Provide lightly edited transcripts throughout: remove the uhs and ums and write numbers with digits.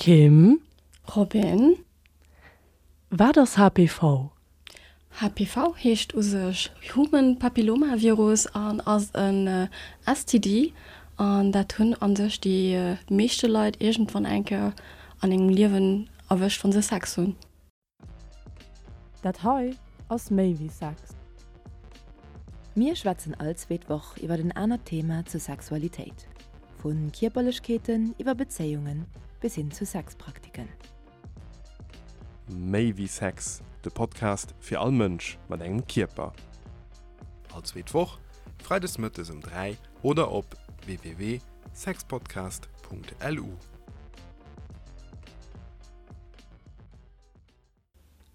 Kim. Robin. Wat ass HPV? HPV heescht u sech Human Papilloma Virus an ass en STD an dat hunn a sech déi meeschte Leit iergendwann eng Kéier an engem Liewen erwëscht wann se Sex hunn. Dat hei ass méi wéi Sex. Mir schwätzen all zweet Woch iwwer en anert Thema zur Sexualitéit, vu Kierperlechkeeten iwwer Bezéiungen bis hin zu Sexpraktiken. Méi wéi Sex, de Podcast fir all Mënsch mat engem Kierper. All zweet Woch, freides mëttes um 3 oder op www.sexpodcast.lu.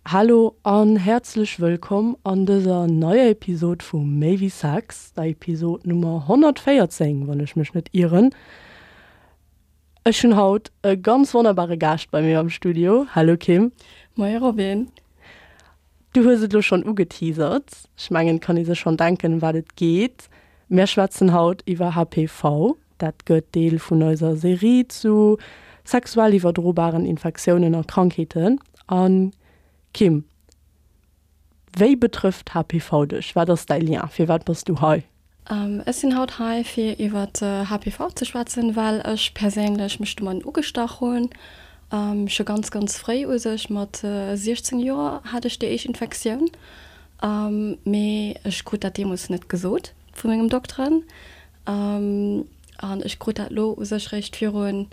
Hallo an häerzlech wëllkomm an dëser neier Episod vu Méi wéi Sex, der Episod Nummer 114, wann ech mech net ieren. Ech hunn haut e ganz wonnerbare Gaascht bei mir am Studio. Hallo Kim. Moie Robin. Du hues et elo schonn ugeteasert, ech mengen et kann ee sech schonn denken ëm wat et geet. Mär schwätzen haut iwwer HPV. Dat gëtt Deel vun eiser Serie zu sexuell iwwerdrobaren Infektiounen a Krankheeten. A Kim, wéi betrëfft HPV dech? Wat ass däi Lien? Firwat bass du hei? Ech sinn haut hei fir iwwer HPV ze schwätzen, well ech perséinlech mech domadden ugestach hunn. Scho ganz ganz fréi u sech, mat 16 Joer hat ech déi éischt Infektioun, mee ech krut dat deemools net gesot vu mengem Dokteren. An ech krut dat elo u sech réischt virun,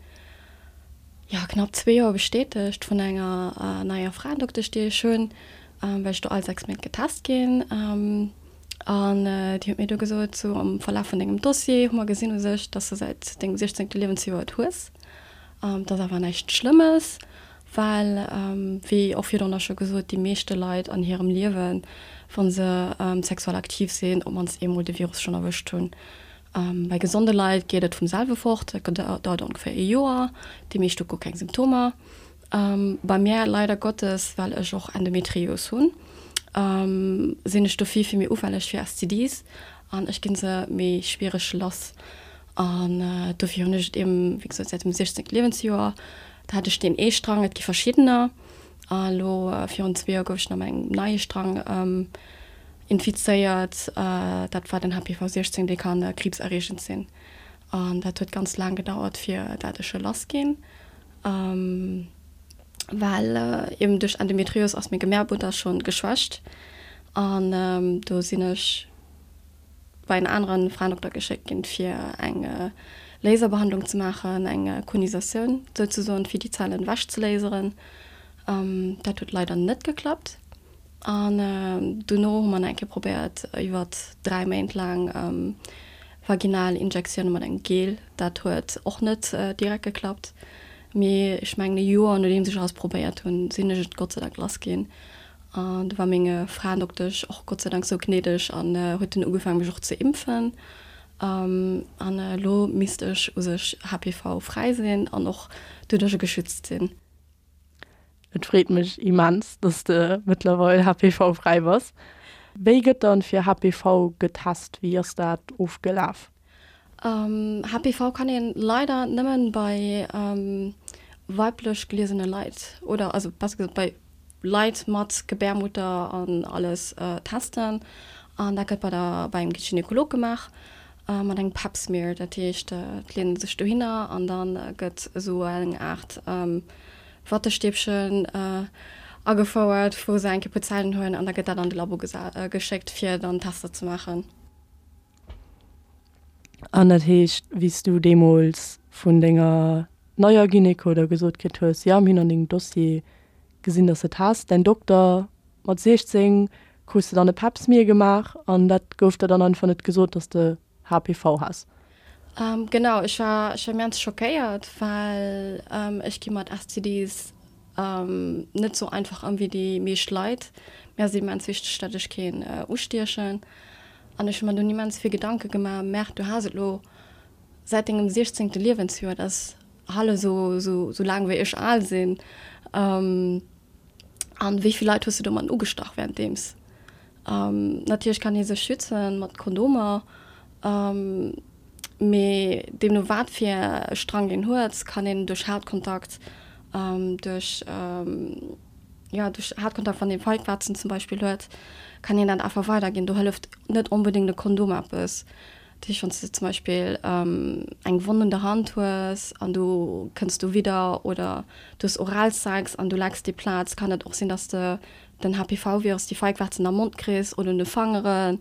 jo, knapp zwee Joer bestätegt vun enger neier Fraendoktesch déi ech hunn, well ech do all 6 Méint getest ginn. An déi huet mir du gesot, sou am Verlaf vun dengem Dossier hu mer gesinn u sech, dass de säit dengem 16. Liewensjoer et hues. Et ass awer näischt Schlëmmes, well, wéi och virdrunner scho gesot, déi meeschte Leit an hirem Liewen, wa se sexuell aktiv sinn, op d'mannst eemol de Virus schonn erwëscht hunn. Bei gesonde Leit geet et vum selwe fort, dat dauert ongeféier ee Joer, déi meescht hu guer keng Symptomer. Bei mär leider Gottes, well ech och Endometrios hunn, sinn ech do vill vill méi ufälleg fir STDs an ech ginn se méi schwiereg lass. An dofir hunn ech et eben, wéi gesot, säit dem 16. Liewensjoer. Da hat ech deen ee Strang, et gi verschiddener. A lo virun zwee Joer gouf ech nach mat engem neie Strang infizéiert. Dat war den HPV 16, dee kann kriibserreegend sinn. An dat huet ganz laang gedauert, fir dat ech e lass ginn. Well eben duerch Endometrios ass meng Gebärmutter schonn geschwächt an do sinn ech bei en aneren Fraendokter geschéckt ginn fir eng Laserbehandlung ze maachen, eng Konisatioun souzesoen, fir déi Zellen ewech ze laseren. Dat huet leider net geklappt. An dono hu mer nach eng Kéier probéiert iwwert 3 Méint laang vaginal Injektioune mat engem Gel. Dat huet och net direkt geklappt. Mee ech mengen e Joer nodeems ech alles probéiert hunn, sinn ech et Gott sei Dank lass ginn. An do war meng Fraendoktesch och Gott sei Dank sou gnädeg an huet dunn ugefaangen mech och ze impfen. An elo misst ech u sech HPV-fräi sinn an och doduercher geschützt sinn. Et freet mech immens, dass de mëttlerweil HPV-fräi bass. Wéi gëtt dann fir HPV getest? Wéi ass dat ofgelaf? HPV kann een leider nëmmen bei weiblech geliesene Leit oder also besser gesot bei Leit mat Gebärmutter an alles testen. An dat gëtt bei der bei engem Gynekolog gemaach mat engem Pap Smear. Dat heescht et leet een sech dohinner an dann gëtt esou eng Aart Wattestäbchen agefouert, wou se eng Kéier puer Zellen huelen an da gëtt dat an de Labo geschéckt, fir dann Tester ze maachen. An dat heescht, wéi s du deemools vun denger neier Gyneko da gesot kritt hues, jo, mir hunn an dengem Dossier gesinn, dass de et has, däin Dokter mat 16 krus de dann e Pap-Smear gemaach an dat gouf der dann einfach net gesot, dass de HPV has? Genau, ech war ech war immens schockéiert, well ech gi mat STDs net sou einfach ëm wéi déi meescht Leit. Mir ass et immens wichteg, datt ech keen ustiechen. An ech hu mer dunn immens vill Gedanke gemaach, Merde, du has et lo säit dengem 16. Liewensjoer, dat ass hallef sou sou laang wéi ech al sinn. An wéi vill Leit hues du domat ugestach wärenddeems? Natierlech kann ee sech schützen mat Kondomer, mee deemno wat fir e Strang een huet, kann een duerch Hautkontakt. Duerch, jo, duerch Hautkontakt, wann ee Feigwarzen zum Beispill huet, kann een dat einfach weiderginn. Do hëlleft net onbedéngt e Kondom eppes. Dat heescht, wann s de zum Beispill eng Wonn un der Hand hues an du kënns do widder oder du hues Oralsex an du lecks déi Plaz, kann et och sinn, dass de den HPV-Virus, déi Feigwarzen am Mond kriss oder un de Fangeren.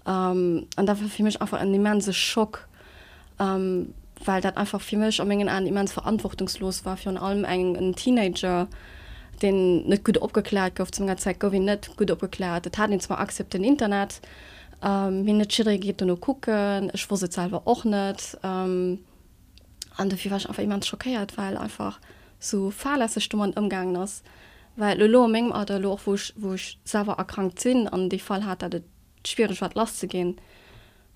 An dat war fir mech einfach en immense Schock. well dat einfach fir mech a mengen Aen immens verantwortungslos war, virun allem eng en Teenager, deen net gutt opgekläert gouf. Zu menger Zäit gouf een net gutt opgekläert. Et hat een zwar Accès op den Internet, mee net jidderee geet dono kucken. Ech wosst et selwer och net. An dofir war ech einfach immens schockéiert, well einfach sou fahrlässeg domat ëmgaangen ass. Well elo a mengem Alter, elo och wou ech wou ech selwer erkrankt sinn an dee Fall hat, dat et schwiereg war et lasszeginn,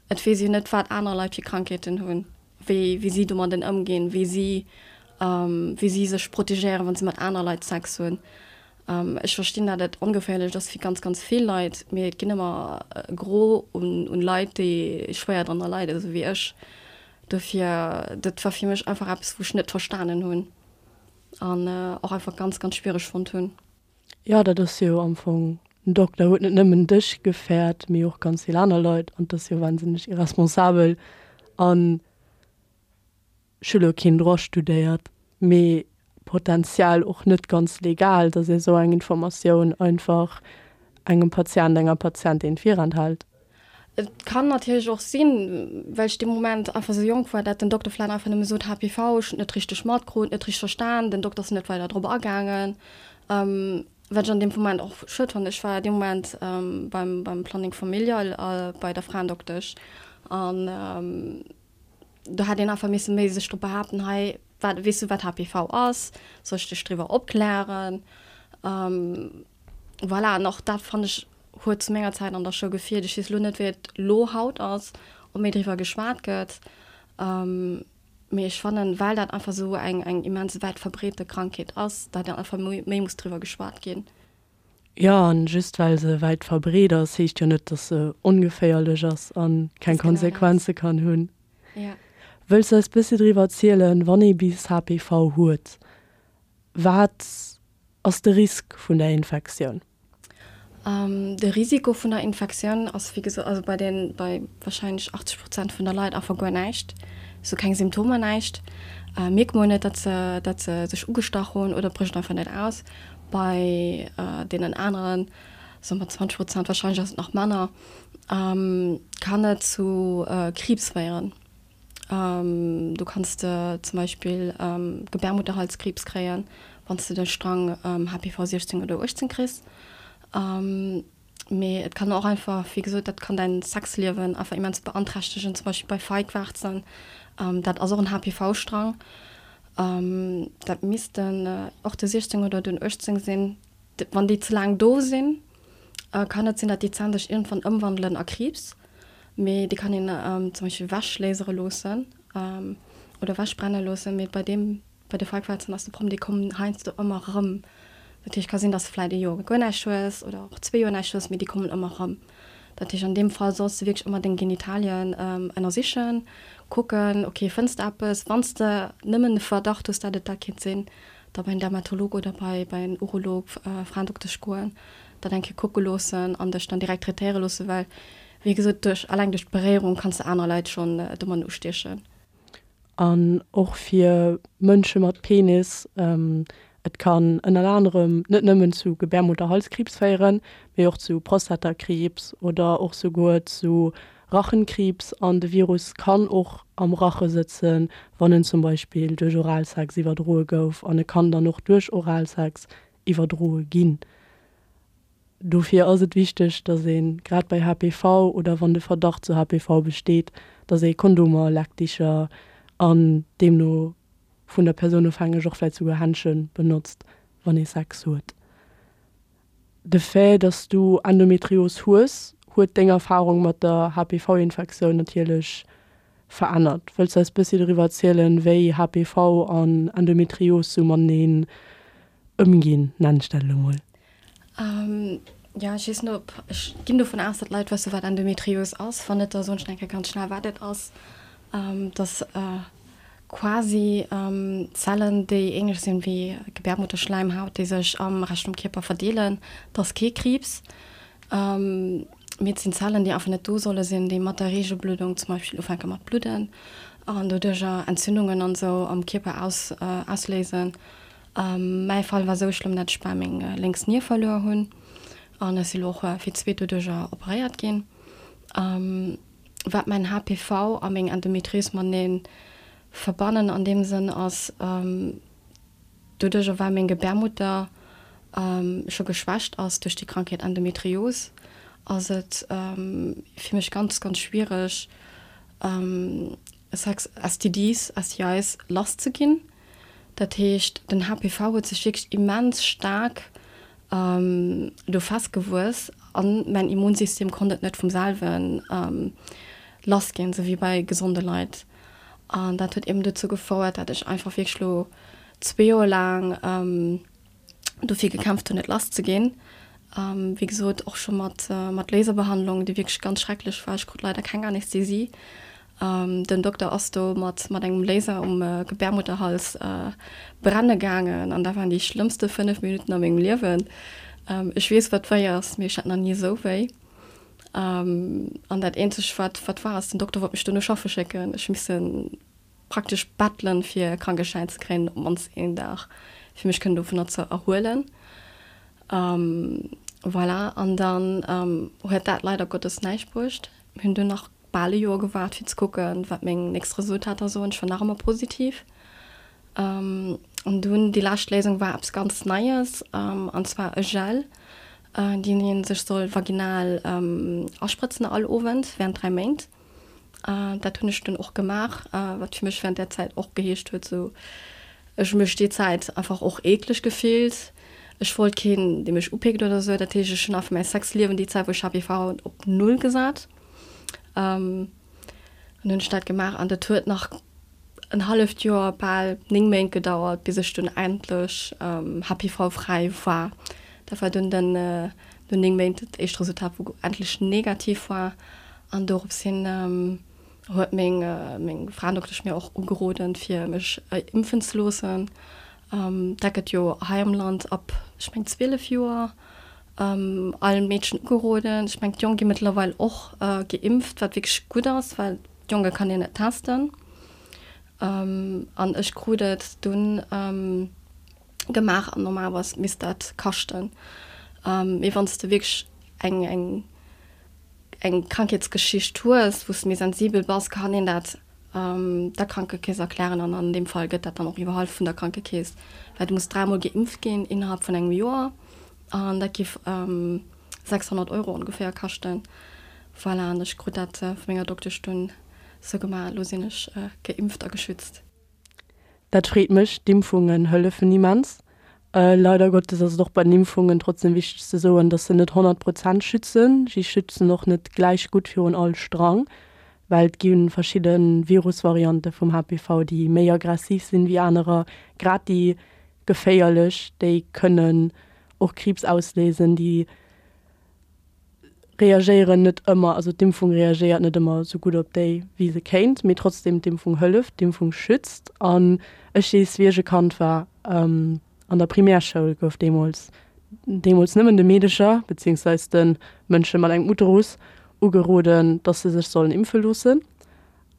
Et weess een net, wat aner Leit fir Krankheeten hunn, wéi wéi si domadden ëmginn, wéi si wéi si sech protegéieren, wa si mat aner Leit Sex hunn. Ech verstinn, dat et ongeféierlech ass fir ganz, ganz vill Leit, mee et ginn ëmmer e Gros un un Leit, déi schwéier drënner leiden, esou wéi ech. Dofir, dat war fir mech einfach eppes, wou ech net verstanen hunn an och einfach ganz, ganz schwiereg fonnt hunn. Jo, dat ass jo am Fong, den Dokter huet net nëmmen dech gefäert, mee och ganz vill aner Leit an 't ass jo wahnsinneg irresponsabel. An ech hu lo keen Droit studéiert, mee potenziell och net ganz legal, datt ee sou eng Informatioun einfach engem Patient, enger Patientin virenthält. Et kann natierlech och sinn, well ech dee Moment einfach esou jonk war, dat den Dokter vläit einfach nëmme sot, HPV, ech hunn et net richteg matkrut, net richteg verstan, den Dokter ass net weider drop agaangen, wat ech an deem Moment och schued fannen. Ech war dee Moment beim beim Planning familial a bei der Fraendoktesch an do hätt een einfach misse méi sech drop behaapten, hei, wat, weess du wat HPV ass, soll ech dech driwwer opklären? Voilà, an och dat fannen ech huet zu menger Zäit an der Schoul gefeelt. Ech weess elo net, wéi et elo haut ass, ob méi driwwer geschwat gëtt, mee ech fannen, well dat einfach esou eng eng immens wäit verbreete Krankheet ass, datt einfach méi muss driwwer geschwat ginn. Jo, an just well se wäit verbreet ass, heescht jo net, datt se ongeféierlech ass a keng Konsequenze kann hunn. Wëlls du eis bëssi driwwer erzielen, wann ee bis HPV huet, wat ass de Risk vun der Infektioun? De Risiko vun der Infektioun ass wéi gesot, also bei den, bei wahrscheinlech 80 Prozent vun der Leit einfach guer näischt, sou keng Symptomer, näischt. Mierkt mol net, datt se, datt se sech ugestach hunn oder brécht einfach net aus. Bei deenen aneren, soe mer 20 Prozent, wahrscheinlech ass et nach manner, kann et zu Kriibs féieren. Du kanns de zum Beispill Gebärmutterhalskriibs kréien, wann s de de Strang HPV 16 oder 18 kriss. Mee et kann och einfach, wéi gesot, dat kann däin Sexliewen einfach immens beanträchtegen, zum Beispill bei Feigwarzen. Dat ass och en HPV-Strang. Dat missten och de 16 oder den 18 sinn. Wann déi ze laang do sinn, kann et sinn, datt déi Zänn sech iergendwann ëmwandelen a Kriibs. Mee déi kann een zum Beispill ewechlasere loossen oder ewechbrenne loossen. Mee bei deem, bei de Feigwarzen ass de Problem, déi kommen heiansdo ëmmer erëm. Dat heescht, ka sinn, datt s de vläit ee Joer guer näischt hues oder och zwee Joer näischt hues, mee déi kommen ëmmer erëm. Dat heescht, an deem Fall solls de wierklech ëmmer deng Genitalien ënnersichen, kucken, ok, fënns de eppes? Wann s de nëmmen de Verdacht hues, datt et dat kéint sinn, da bei en Dermatolog oder bei bei en Urolog, Fraendoktesch goen, dat eng Kéier kucke loossen an dech dann direkt traitéiere loossen, well wéi gesot duerch alleng duerch d'Beréierung kanns de aner Leit schonn domadden ustiechen. An och fir Mënsche mat Penis, et kann ënnert anerem net nëmmen zu Gebärmutterhalskriibs féieren, mee och zu Prostatakriibs oder och souguer zu Rachenkriibs an de Virus kann och am Rache sëtzen, wann en zum Beispill duerch Oralsex iwwerdroe gouf an e kann dann och duerch Oralsex iwwerdroe ginn. Dofir ass et wichteg, dass ee grad bei HPV oder wann de Verdacht zu HPV besteet, dass ee Kondomer, Leckdicher an deemno vun der Persoun ofhängeg och vläicht souguer Händschen benotzt, wann ee Sex huet. De Fait, dass du Endometrios hues, huet deng Erfarung mat der HPV-Infektioun natierlech verännert. Wëlls du eis bëssi doriwwer erzielen, wéi HPV an Endometrios sou mateneen ëmginn, nennen ech dat elo mol? Jo, ech weess net, ob, ech ginn dovun aus, datt d'Leit wësse wat Endometrios ass. Wann net, da soen ech nach eng Kéier ganz schnell wat et ass. Dat ass. quasi Zellen, déi ähnlech sinn wéi Gebärmutterschleimhaut, déi sech am Rescht vum Kierper verdeelen. Et ass kee Kriibs, mee et sinn Zellen, déi einfach net do solle sinn, déi mat der Reegelbluddung zum Beispill ufänke mat bludden an doduercher Entzündungen an esou am Kierper ausléisen. Mäi Fall war esou schlëmm, dat ech bal meng lénks Nier verluer hunn an ech si lo och fir d'zweet doduercher operéiert ginn. Wat mäin HPV a meng Endometrios matenee verbannen an deem Sënn ass, doduercher well meng Gebärmutter scho geschwächt ass duerch déi Krankheet Endometrios, ass et fir mech ganz, ganz schwiereg Sex, STDs, STIs lass ze ginn. Dat heescht, den HPV huet sech wierklech immens staark do festgewuess an mäin Immunsystem konnt et net vum selwe lass ginn, esou wéi bei gesonde Leit. An dat huet eben dozou gefouert, dat ech einfach wierklech lo zwee Joer laang dofir gekämpft hunn, et lass ze ginn. Wéi gesot, och scho mat mat Laserbehandlung, déi wierklech ganz schrecklech war. Ech krut leider keng Anästhesie. Den Dokter ass do mat mat engem Laser um Gebärmutterhals brenne gaangen an dat waren déi schlëmmste 5 Minutten a mengem Liewen. Ech weess, wat wéi ass, mee ech hat nach ni esou wéi. An dat eenzegt, wat wat war, ass, den Dokter wollt mech duerno schaffe schécken. Ech hu missen praktesch bettelen, fir e Krankeschäin ze kréien, op d'mannst een Dag, fir mech kënnen dovunner ze erhuelen. Voilà, an dann huet dat leider Gottes näischt bruecht. Mir hunn dunn nach bal e Joer gewaart, fir ze kucken, wat meng nächst Resultater soen. Ech war nach ëmmer positiv. An dunn déi lescht Léisung war eppes ganz Neies, an zwar e Gel, deen ee sech soll vaginal asprëtzen all Owend während 3 Méint. Dat hunn ech dunn och gemaach, wat fir mech während där Zäit och geheescht huet, sou ech hu mech déi Zäit einfach och eekleg gefillt. Ech wollt keen, dee mech upickt oder sou. Dat heescht, ech hunn einfach mäi Sexliewen déi Zäit, wou ech HPV hat, op Null gesat. An hunn ech dat gemaach an dat huet nach en halleft Joer, bal 9 Méint gedauert, bis ech dunn endlech HPV-fräi war. Dat war dunn den, no 9 Méint dat éischt Resultat, wou endlech negativ war. An dorops hin huet meng, meng Fraendoktesch mir och ugeroden, fir mech impfen ze loossen. Dat gëtt jo hei am Land ab, ech meng, 12 Joer all Meedchen ugeroden. Ech meng, d'Jong gi mëttlerweil och geimpft, wat wierklech gutt ass, well d'Jonge kann een net testen. An ech krut et dunn gemaach an normalerweis misst dat kaschten. Mee wann s de wierklech eng, eng, eng Krankheetsgeschicht hues, wou s de méi sensibel bass, kann een dat der Krankekeess erklären an an deem Fall gëtt dat dann och iwwerhall vun der Krankekeess, well du muss dräimol geimpft ginn innerhalb vun engem Joer an dat giff 600 Euro ongeféier kaschten. Voilà, an ech krut dat vu menger Doktesch dunn sou gemaach. Elo sinn ech geimpft a geschützt. Dat freet mech, d'Impfungen hëllefen immens. Leider Gottes ass et och bei den Impfungen trotzdem wichteg ze soen, dass se net 100 Prozent schützen. Si schützen och net gläich gutt virun all Strang, well et gi verschidde Virusvariante vum HPV, déi méi aggressiv sinn wéi anerer. Grad déi geféierlech, déi kënnen och Kriibs ausléisen, déi reagéieren net ëmmer, also d'Impfung reagéiert net ëmmer esou gutt op déi, wéi se kéint, mee trotzdem, d'Impfung hëlleft, d'Impfung schützt. An ech weess, wéi ech e Kand war, an der Primärschoul gouf deemools, deemools nëmmen de Meedecher, beziehungsweis de Mënsche mat engem Uterus, ugeroden, dass se sech sollen impfe loossen.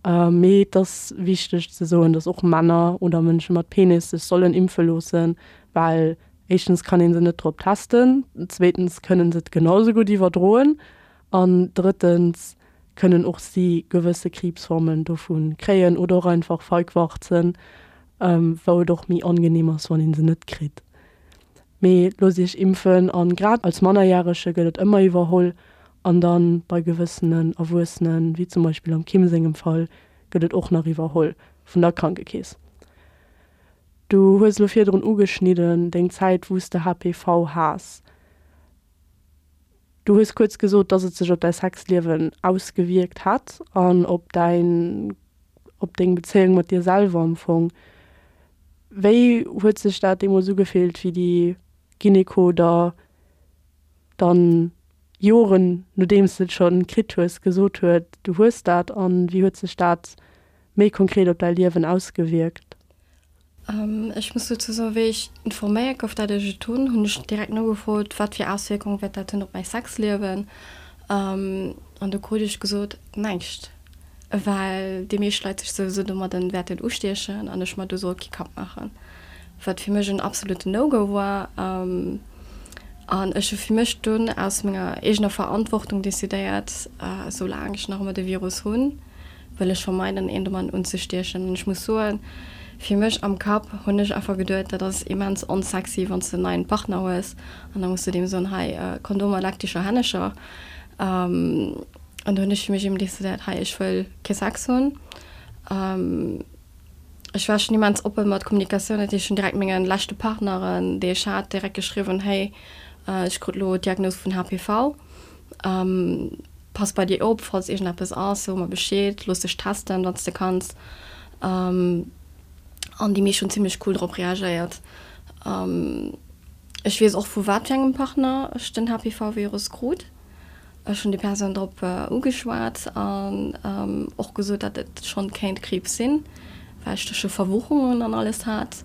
Mee et ass wichteg ze soen, dass och Männer oder Mënsche mat Penis sech sollen impfe loossen, well éischtens kann ee se net drop testen, zweetens kënnen se et genau sou gutt iwwerdroen an drëttens kënnen och si gewësse Kriibsformen dovu kréien oder och einfach Feigwarzen, wou et och méi angenehm ass, wann ee se net kritt. Mee loosst iech impfen an grad als Mannerjärege gëtt et ëmmer iwwerholl an dann bei gewëssenen Erwuessenen, wéi zum Beispill am Kim sengem Fall, gëtt et och nach iwwerholl vun der Krankekeess. Du hues elo virdrun ugeschnidden deng Zäit wou s de HPV has. Du hues kuerz gesot, dass et sech op däi Sexliewen ausgewierkt hätt an op däin, op deng Bezéiung mat dir selwer am Fong. Wéi huet sech dat deemools ugefillt, wéi déi Gyneko der dann Joren nodeems de et scho kritt hues, gesot huet, du hues dat? An wéi huet sech dat. méi konkret op däi Liewen ausgewierkt? Ech muss dozou soen, wéi ech informéiert gouf, dat ech et hunn, hunn ech direkt nogefrot, wat fir Auswierkung wäert dat hunn op mäi Sexliewen. An do krut ech gesot, näischt, well déi meescht Leit sech souwisou domadden wäerten ustiechen an ech mer do soll kee Kapp maachen. Wat fir mech en absoluten No-Go war. An ech hu fir mech dunn aus menger eegener Verantwortung decidéiert, soulaang ech nach ëmmer de Virus hunn, wëll ech vermeiden een domadden unzestiechen. An ech muss soen, fir mech am Kapp hunn ech einfach geduet, dat ass immens onsexy wann s de en neien Partner hues an da muss de deem soen, hei Kondomer, leck dech a Hännecher. An do hunn ech fir mech eben decidéiert, hei ech wëll kee Sex hunn. Ech war schonn immens oppe mat Kommunikatioun, dat heescht ech hunn direkt menge leschte Partneren déi ech hat direkt geschriwwen, hey ech krut elo d'Diagnos vun HPV. Pass bei dir op, falls iergendeppes ass, so mer Bescheed, looss dech testen, wann s de kanns. An déi meescht hunn zimmlech cool drop reagéiert. Ech weess och, vu wat fir engem Partner ech den HPV-Virus krut. Ech hunn déi Persoun drop ugeschwat an och gesot, datt et schonn kéint Kriibs sinn, well ech do scho Verwuchungen an alles hat.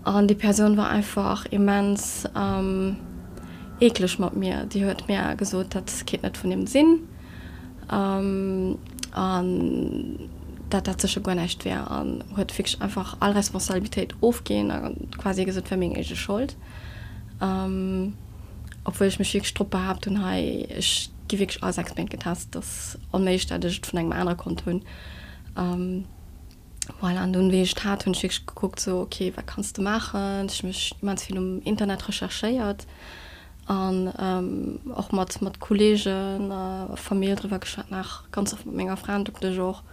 An déi Persoun war einfach immens eekleg mat mir. Déi huet mir gesot, dat kéint net vun him sinn an dat dat sécher guer näischt wär an huet wierklech einfach all Responsabilitéit ofginn a quasi gesot, et wär meng eege Schold. Obwuel ech mech wierklech drop behaapt hunn, hei ech gi wierklech all 6 Méint getest, et ass onméiglech, dat ech et vun engem anere konnt hunn. Voilà, an dunn, wéi ech et hat, hunn ech wierklech gekuckt, sou, ok, wat kanns de maachen? Ech hu mech immens vill um Internet recherchéiert an och mat, mat Kolleegen a Famill driwwer geschwat, nach ganz oft mat menger Frendoktesch och.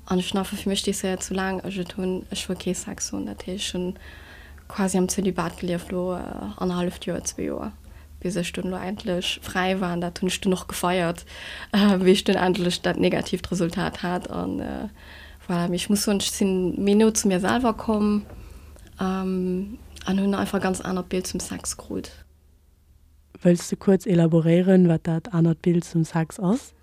An ech hunn einfach fir mech decidéiert, soulaang ech et hunn, ech wëll kee Sex hunn. Dat heescht, ech hunn quasi am Zölibat gelieft elo annerhalleft Joer, zwee Joer. Bis ech dunn elo endlech fräi war, an dat hunn ech dunn och gefeiert, wéi ech dunn endlech dat negatiivt Resultat hat. An voilà, mee ech muss soen, ech sinn méi no zu mir selwer komm an hunn einfach e ganz anert Bild zum Sex krut. Wëlls de kuerz elaboréieren, wat dat anert Bild zum Sex ass?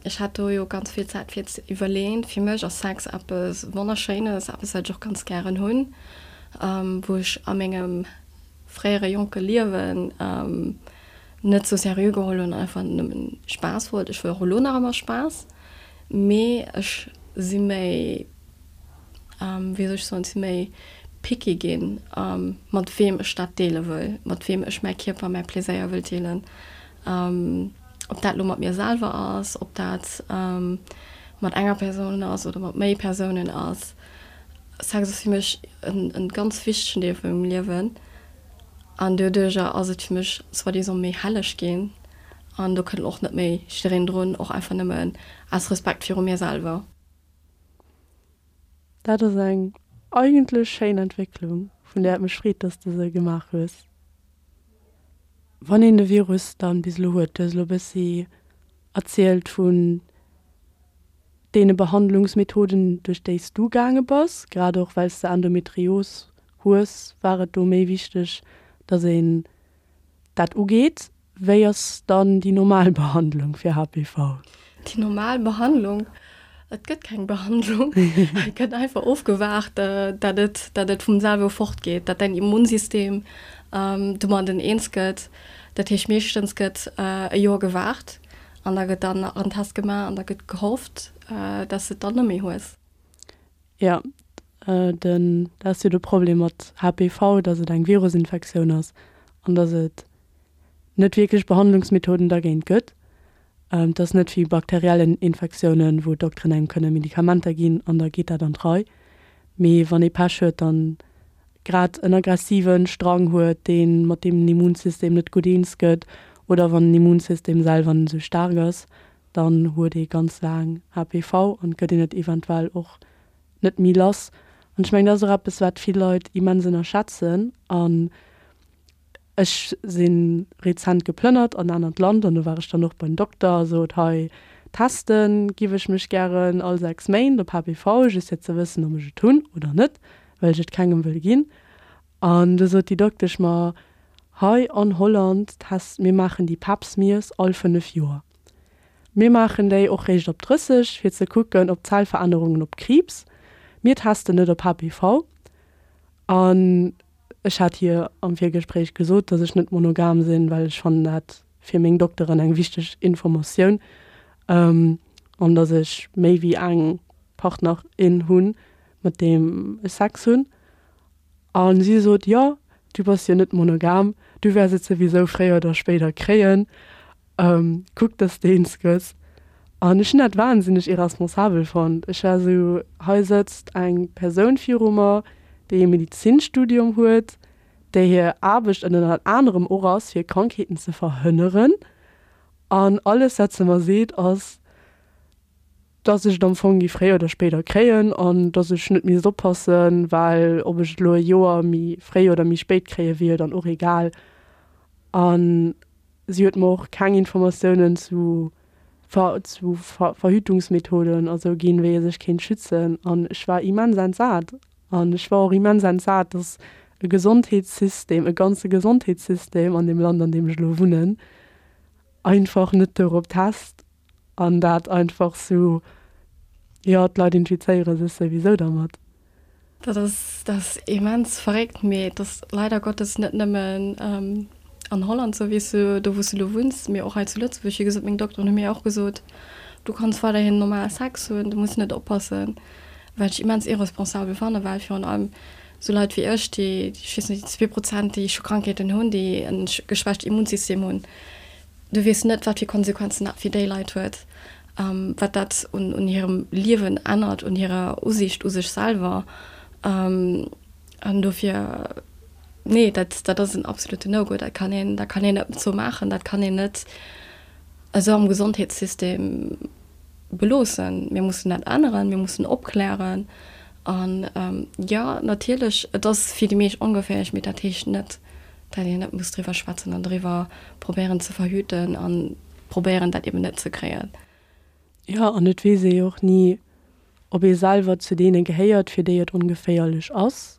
Ech hat do jo ganz vill Zäit fir ze iwwerleen. Fir mech ass Sex eppes Wonnerschéines, eppes wat ech och ganz gären hunn, wou ech a mengem fréiere jonke Liewen net sou seriö geholl hunn an einfach nëmmen Spaass wollt. Ech wëll och elo nach ëmmer Spaass, mee ech si méi, wéi soll ech soen, si méi picky ginn, mat weem ech dat deele wëll, mat weem ech mäi Kierper, mäi Pleséier wëll deelen. Ob dat elo mat mir selwer ass, ob dat mat enger Persoun ass oder mat méi Persounen ass. Sex ass fir mech en ganz wichtegen Deel vu mengem Liewen an doduercher ass et fir mech soi-disant méi helleg ginn an do kënnt och net méi jiddereen drun, och einfach nëmmen aus Respekt viru mir selwer. Dat ass eng eigentlech schéin Entwécklung, vun där et mech freet, dass de se gemaach hues. Wann een de Virus dann bis elo huet, du hues elo e bëssi erzielt vun deene Behandlungsmethoden, duerch déi s du gaange bass, grad och well s de Endometrios hues, war et do méi wichteg, datt een dat ugeet. Wéi ass dann déi normal Behandlung fir HPV? Déi normal Behandlung? Et gëtt keng Behandlung. Et gëtt einfach ofgewaart, datt et, datt et vum selwe fortgeet, datt däin Immunsystem domadden eens gëtt. Dat heescht, meeschtens gëtt e Joer gewaart an da gëtt dann nach en Test gemaach an da gëtt gehofft, datt s de et dann net méi hues. Jo, den, dat ass jo de Problem mat HPV, datt et eng Virusinfektioun ass an datt et net wierklech Behandlungsmethoden dergéint gëtt. Et ass net wéi bakteriellen Infektiounen, wou d'Dokteren engem kënne Medikamenter ginn an da geet dat an d'Rei. Mee wann ee Pech huet an grad en aggressive Strang huet, dee mat deem den Immunsystem net gutt eens gëtt, oder wann den Immunsystem selwer net esou staark ass, dann huet ee ganz laang HPV an gëtt een et eventuell och net méi lass. An ech mengen, dat ass och eppes, wat vill Leit immens ënnerschätzen. An Ech si rezent geplënnert an anert Land an do war ech dann och beim Dokter a sot, hei teste giff ech mech gären all 6 Méint op HPV, just fir ze wëssen, ob ech et hunn oder net, well ech et kengem wëll ginn. An du sot déi Doktesch mer, hei an Holland test, mir maachen déi Pap Smears all 5 Joer. Mir maachen déi och réischt op 30, fir ze kucken op Zellverännerungen op Kriibs. Mir testen net op HPV. An ech hat hir am Virgespréich gesot, dass ech net monogam sinn, well ech fannen dat fir meng Dokteren eng wichteg Informatioun, an dass ech méi wéi eng Partner, in hunn, mat deem ech Sex hunn. A si sot, Jo, du bass jo net monogam, du wäers et souwisou fréier oder spéider kréien. Kuck, dass de eens gëss. An ech hunn dat wahnsinneg irresponsabel fonnt. Ech war esou, hei sëtzt eng Persoun viru mer, déi e Medizinstudium huet, där hir Aarbecht ënnert anerem och ass, fir Krankheeten ze verhënneren. An alles, wat se mer seet, ass, dass ech et am Fong géif fréier oder spéider kréien an dass ech net misst oppassen, well ob ech et elo e Joer méi fréi oder méi spéit kréie wier jo dann och egal. An si huet mer och keng Informatiounen zu zu Verhütungsmethoden a sou ginn, wéi ee sech kéint schützen. An ech war immens entsat. An ech war och immens entsat, dass e Gesondheetssystem, e ganze Gesondheetssystem an deem Land, an deem ech elo wunnen, einfach net dorop test an dat einfach sou, jo, d'Leit infizéiere sech souwisou dermat. Dat ass, dat ass immens verréckt, mee et ass leider Gottes net nëmmen an Holland sou, wéi s du, do wou s du elo wunns, mee och hei zu Lëtzebuerg. Wéi gesot, meng Dokteren hu mir och gesot, du kanns weiderhin normal Sex hunn, du muss net oppassen, wat ech immens irresponsabel fannen, well virun allem sou Leit wéi ech, déi, ech weess net, déi 2%, déi scho Krankheeten hunn, déi e geschwächt Immunsystem hunn, Du weess net, wat fir Konsequenzen dat fir déi Leit huet, wat dat un hirem Liewen ännert, un hirer Usiicht u sech selwer. An dofir, nee, dat, dat ass en absoluten No-Go. Dat kann een, dat kann een net esou maachen. Dat kann een net esou am Gesondheetssystem beloossen. Mir mussen dat änneren, mir mussen opklären. An jo, natierlech, et ass fir déi meescht ongeféierlech, mee dat heescht net, dat een net muss driwwer schwätzen an driwwer probéieren ze verhüten an probéieren dat eben net ze kréien. Jo, an et weess ee jo och ni, ob ee selwer zu deene gehéiert, fir déi et ongeféierlech ass,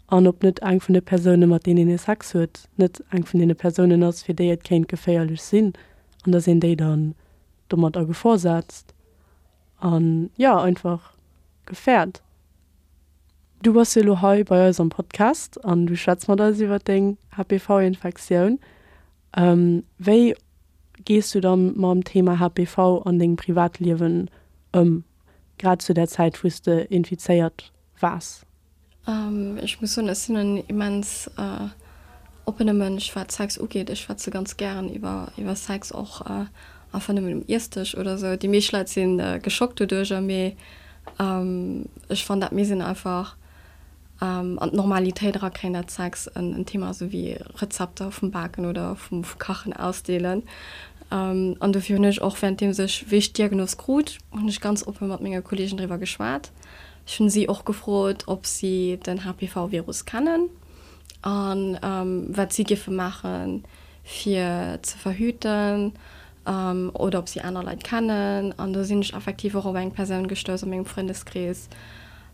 an ob net eng vun de Persounen, mat deenen ee Sex huet, net eng vun deene Persounen ass, fir déi et kéint geféierlech sinn, an dass een déi dann domat a Gefor setzt an, jo, einfach gefäert. Du bass jo elo hei bei eis am Podcast an du schwätz mat eis iwwer deng HPV-Infektioun. Wéi gees du dann mam Thema HPV an dengem Privatliewen ëm, grad zu der Zäit wou s de infizéiert waars? Ech muss soen, ech sinn en immens oppene Mënsch wat Sex ugeet. Ech schwätze ganz gären iwwer Sex, och einfach nëmmen um Iessdësch oder sou. Déi meescht Leit si geschockt doduercher, mee Ech fannen dat misst een einfach an d'Normalitéit erakréien, dat Sex en Thema ass, esou wéi Rezepter vum Baken oder vum Kachen ausdeelen. An dofir hunn ech och währenddeems ech, wéi ech d'Diagnos krut, hunn ech ganz oppe mat menge Kolleegen driwwer geschwat. Ech hunn si och gefrot, ob si den HPV-Virus kennen a wat si géife maachen, fir ze verhüten. oder ob si aner Leit kennen. An do sinn ech effektiv och op eng Persoun gestouss a mengem Frëndeskrees,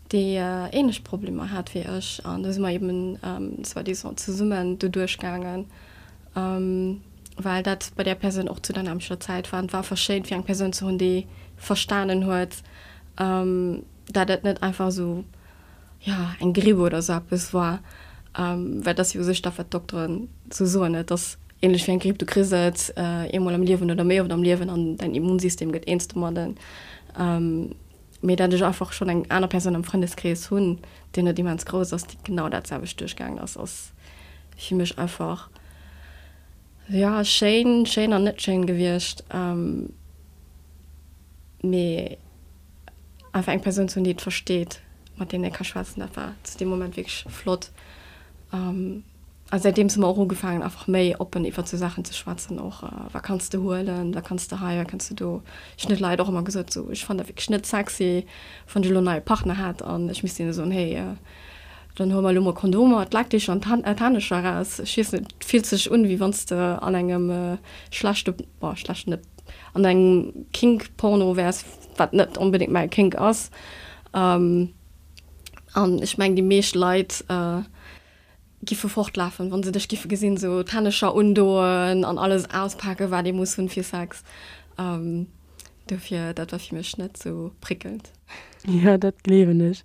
déi ähnlech Problemer hat wéi ech. An do si mer eben soi-disant zesummen doduerch gaangen, well dat bei där Persoun och zu der nämmlechter Zäit war. An et war einfach schéin, fir eng Persoun ze hunn, déi verstanen huet, dat et net einfach esou jo, eng Gripp oder esou eppes war, well et ass jo u sech dat, wat d'Dokteren esou soen, et ass ähnlech wéi eng Gripp, du kriss et eemol am Liewen oder méi oft am Liewen an däin Immunsystem gëtt eens domadden. Mee dat ech einfach schonn eng aner Persoun am Frëndeskrees hunn, deen net immens grouss ass, déi genau dat selwecht duerchgaangen ass, ass fir mech einfach, jo, schéin, schéin an net schéin gewiescht. Mee. Einfach eng Persoun ze hunn, déi et versteet, mat deem ee ka schwätzen, dat war zu deem Moment wierklech flott. A säitdeems hu mer och ugefaangen, einfach méi oppen iwwert sou Saachen ze schwätzen och. Wat kanns de huelen, wat kanns de hei, wat kanns de do. Ech hunn de Leit och ëmmer gesot, sou, ech fannen dat wierklech net sexy, wann ech elo en neie Partner hätt an ech misst hinne soen, hey, dann huele mer elo mol Kondomer, d'Leckdicher an d'Hännescher eraus. Ech weess net, et fillt sech un, wéi wann s de an engem schlechte, bon, schlechten net, an engem Kink-Porno wäers, wat net onbedéngt mäi Kink ass. An ech mengen, déi meescht Leit giffe fortlafen, wa se dech giffe gesinn, esou d'Hännescher undoen an alles auspaken, wat ee muss hunn fir Sex. Dofir, dat war fir mech net sou prickelnd. Jo, dat gleewen ech.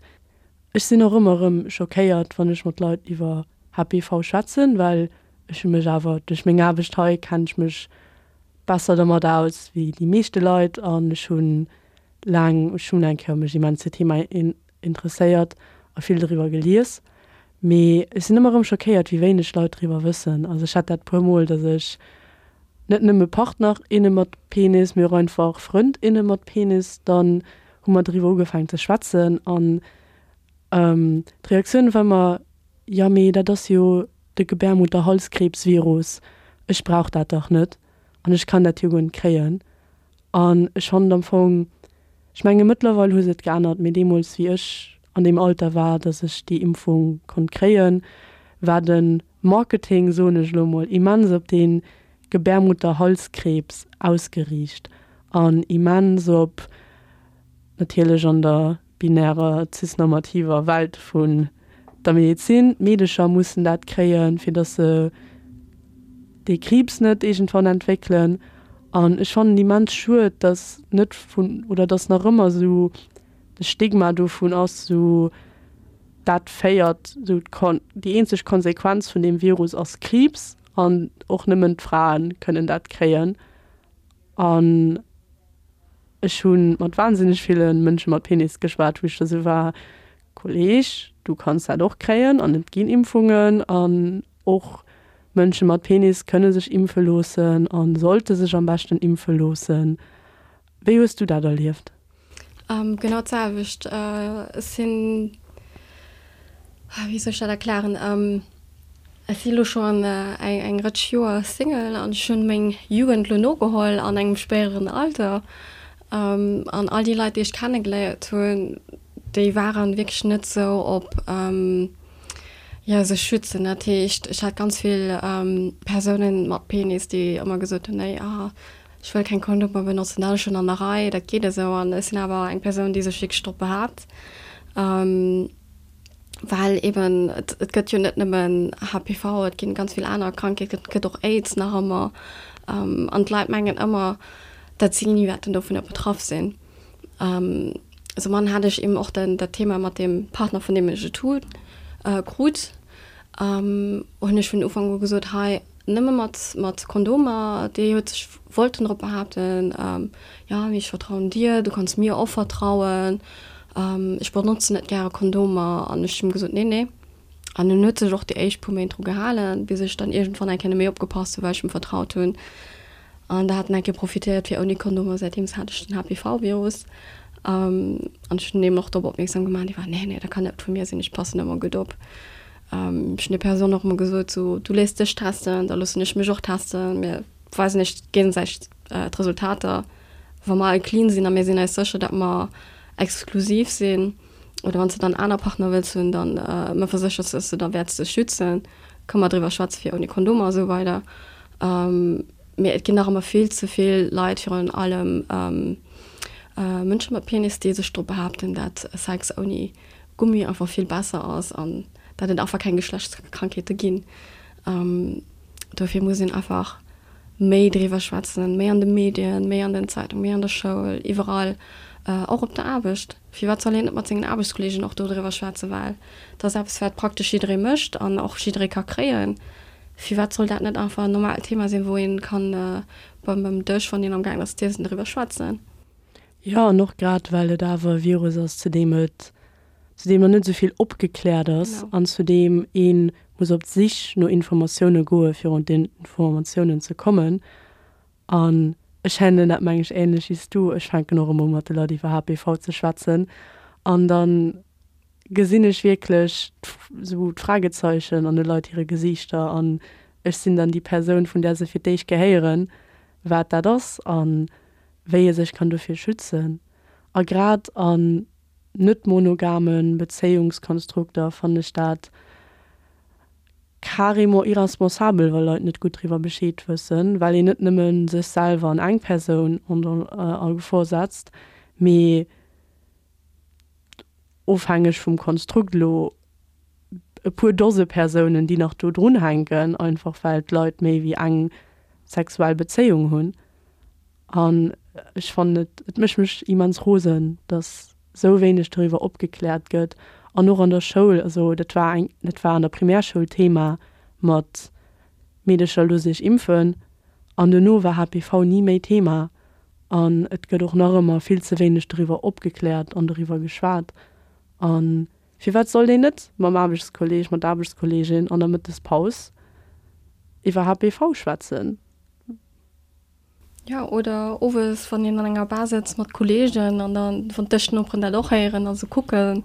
Ech sinn och ëmmer erëm schockéiert, wann ech mat Leit iwwer HPV schwätzen, well ech hu mech awer duerch meng Aarbecht hei kennen ech mech besser domat aus wéi déi meeschte Leit an ech hu laang, ech hunn eng Kéier mech immens fir d'Thema interesséiert a vill doriwwer gelies, mee ech sinn ëmmer erëm schockéiert, wéi wéineg Leit doriwwer wëssen. Also ech hat dat puer mol, datt ech net nëmme Partner, inne mat Penis, mee och einfach Frënd, inne mat Penis, dann hu mer doriwwer ugefaangen ze schwätzen an d'Reaktioun war ëmmer, jo mee dat ass jo de Gebärmutterhalskrebsvirus, ech brauch dat dach net an ech kann dat jo guer net kréien. An ech fannen am Fong, ech menge mëttlerweil hu se et geännert, mee deemools wéi ech an deem Alter war, datt ech déi Impfung konnt kréien, war de Marketing, soen ech elo mol, immens op dee Gebärmutterhalskrebs ausgeriicht an immens op, natierlech an der binärer cisnormativer Welt vun der Medezin, d'Meedecher mussen dat kréien, fir datt se dee Kriibs net iergendwann entwéckelen. An ech fannen immens schued, datt net vun, oder datt nach ëmmer esou de Stigma dovun ass, esou dat féiert, esou d'Kon, déi eenzeg Konsequenz vun deem Virus ass Kriibs an och nëmmen d'Frae kënnen dat kréien. An ech hu mat wahnsinneg ville Mënsche mat Penis geschwat, wou ech da sou war, Kolleg, du kanns dat och kréien an et ginn Impfungen an och Mënsche mat Penis kënne sech impfe loossen a sollte sech am beschten impfe loossen. Wéi hues du dat erlieft? Genau d'selwecht. Ech sinn, wéi soll ech dat erklären, ech si lo schonn eng Rëtsch Joer Single an ech hunn meng Jugend lo nogeholl an engem spéideren Alter. An all déi Leit, déi ech kennegeléiert hunn, déi waren wierklech net sou op, jo, sech schützen. Dat heescht, ech hat ganz vill Persounen mat Penis, déi ëmmer gesot hunn, nee, ah, Ech wëll keng Kondomer benotzen, dat ass schonn an der Rei, dat geet esou. An ech sinn awer eng Persoun, déi sech wierklech drop behaapt, well eben et et gëtt jo net nëmmen HPV, et ginn ganz vill aner Krankheeten, et gëtt och Aids nach ëmmer. An d'Leit mengen ëmmer, datt si ni wäerten dovunner betraff sinn. Soumann hat ech eben och den dat Thema mat deem Partner, vun deem ech et hu krut, hunn ech vun Ufank u gesot, hei, Nëmme mat mat Kondomer, déi huet sech wollten drop behaapten, jo mee ech vertrauen dir, du kanns mir och vertrauen, ech benotzen net gäre Kondomer. An ech hunn gesot, nee nee. An en huet sech och déi éischt puer Méint dru gehalen, bis ech dann iergendwann eng Kéier net méi opgepasst hunn, well ech em vertraut hunn. An da hat en eng Kéier profitéiert fir ouni Kondomer, säitdeems hat ech den HPV-Virus. An ech hunn him och drop opmierksam gemaach, an hie war, nee nee, dat kann net vu mir sinn, ech passen ëmmer gutt op. Ech hunn der Persoun och ëmmer gesot, sou, du léiss dech testen, da loossen ech mech och testen, mir weisen eis géigesäiteg d'Resultater. Wa mer all clean sinn a mir sinn eis sécher, datt mer exklusiv sinn, oder wann s de dann aner Partner wëlls hunn, dann mer verséchers, datt s de da wäerts dech schützen, kënne mer driwwer schwätze fir ouni Kondomer a sou weider. Mee et ginn nach ëmmer vill ze vill Leit, virun allem Mënsche mat Penis, déi sech drop behaapten, datt Sex ouni Gummi einfach vill besser ass an dat et einfach keng Geschlechtskrankheete ginn. Dofir muss een einfach méi driwwer schwätzen, méi an de Medien, méi an den Zeitungen, méi an der Schoul, iwwerall, och op der Aarbecht. Firwat soll een net mat sengen Aarbechtskolleegen och dodriwwer schwätzen, well dat ass eppes wat praktesch jidderee mécht an och jidderee ka kréien. Firwat soll dat net einfach en normaalt Thema sinn, wou een kann beim Dësch, wann een am gaangen ass z'iessen, driwwer schwätzen? Jo, an och grad well et awer e Virus ass, zu deem et, zu deem nach net esou vill opgekläert ass an zu deem ee muss op d'Sich no Informatioune goe fir un d'Informatiounen ze kommen. An ech handelen dat meng ech änlech wéi s du, ech fänken och ëmmer u mat de Leit iwwer HPV ze schwätzen an da gesinn ech wierklech esou d'Fragezeichen an de Leit hire Gesiichter an ech sinn dann déi Persoun, vun där se fir d'éischt gehéieren, wat dat ass an wéi ee sech kann dofir schützen. A grad an net monogame Bezéiungskonstrukter fannen ech dat carrément irresponsabel, wa Leit net gutt driwwer Bescheed wëssen, well een net nëmme sech selwer an eng Persoun a Gefor setzt, mee ofhängeg vum Konstrukt elo e puer Dose Persounen, déi nach do drunhänken, einfach well d'Leit méi wéi eng sexuell Bezéiung hunn. An ech fannen et, et mécht mech immens rosen, datt esou wéineg doriwwer opgekläert gëtt. An och an der Schoul, also dat war eng, dat war an der Primärschoul Thema mat Meedercher looss iech impfen. An duerno war HPV ni méi Thema. An et gëtt och nach ëmmer vill ze wéineg doriwwer opgekläert an doriwwer geschwat. A firwat sollt een net mam Aarbechtskolleeg, mat der Aarbechtskolleegin an der Mëttespaus iwwer HPV schwätzen? Jo, oder owes, wann een an enger Bar sëtzt mat Kolleegen an dann, wann d'Dëschnoperen dat och héieren a se kucken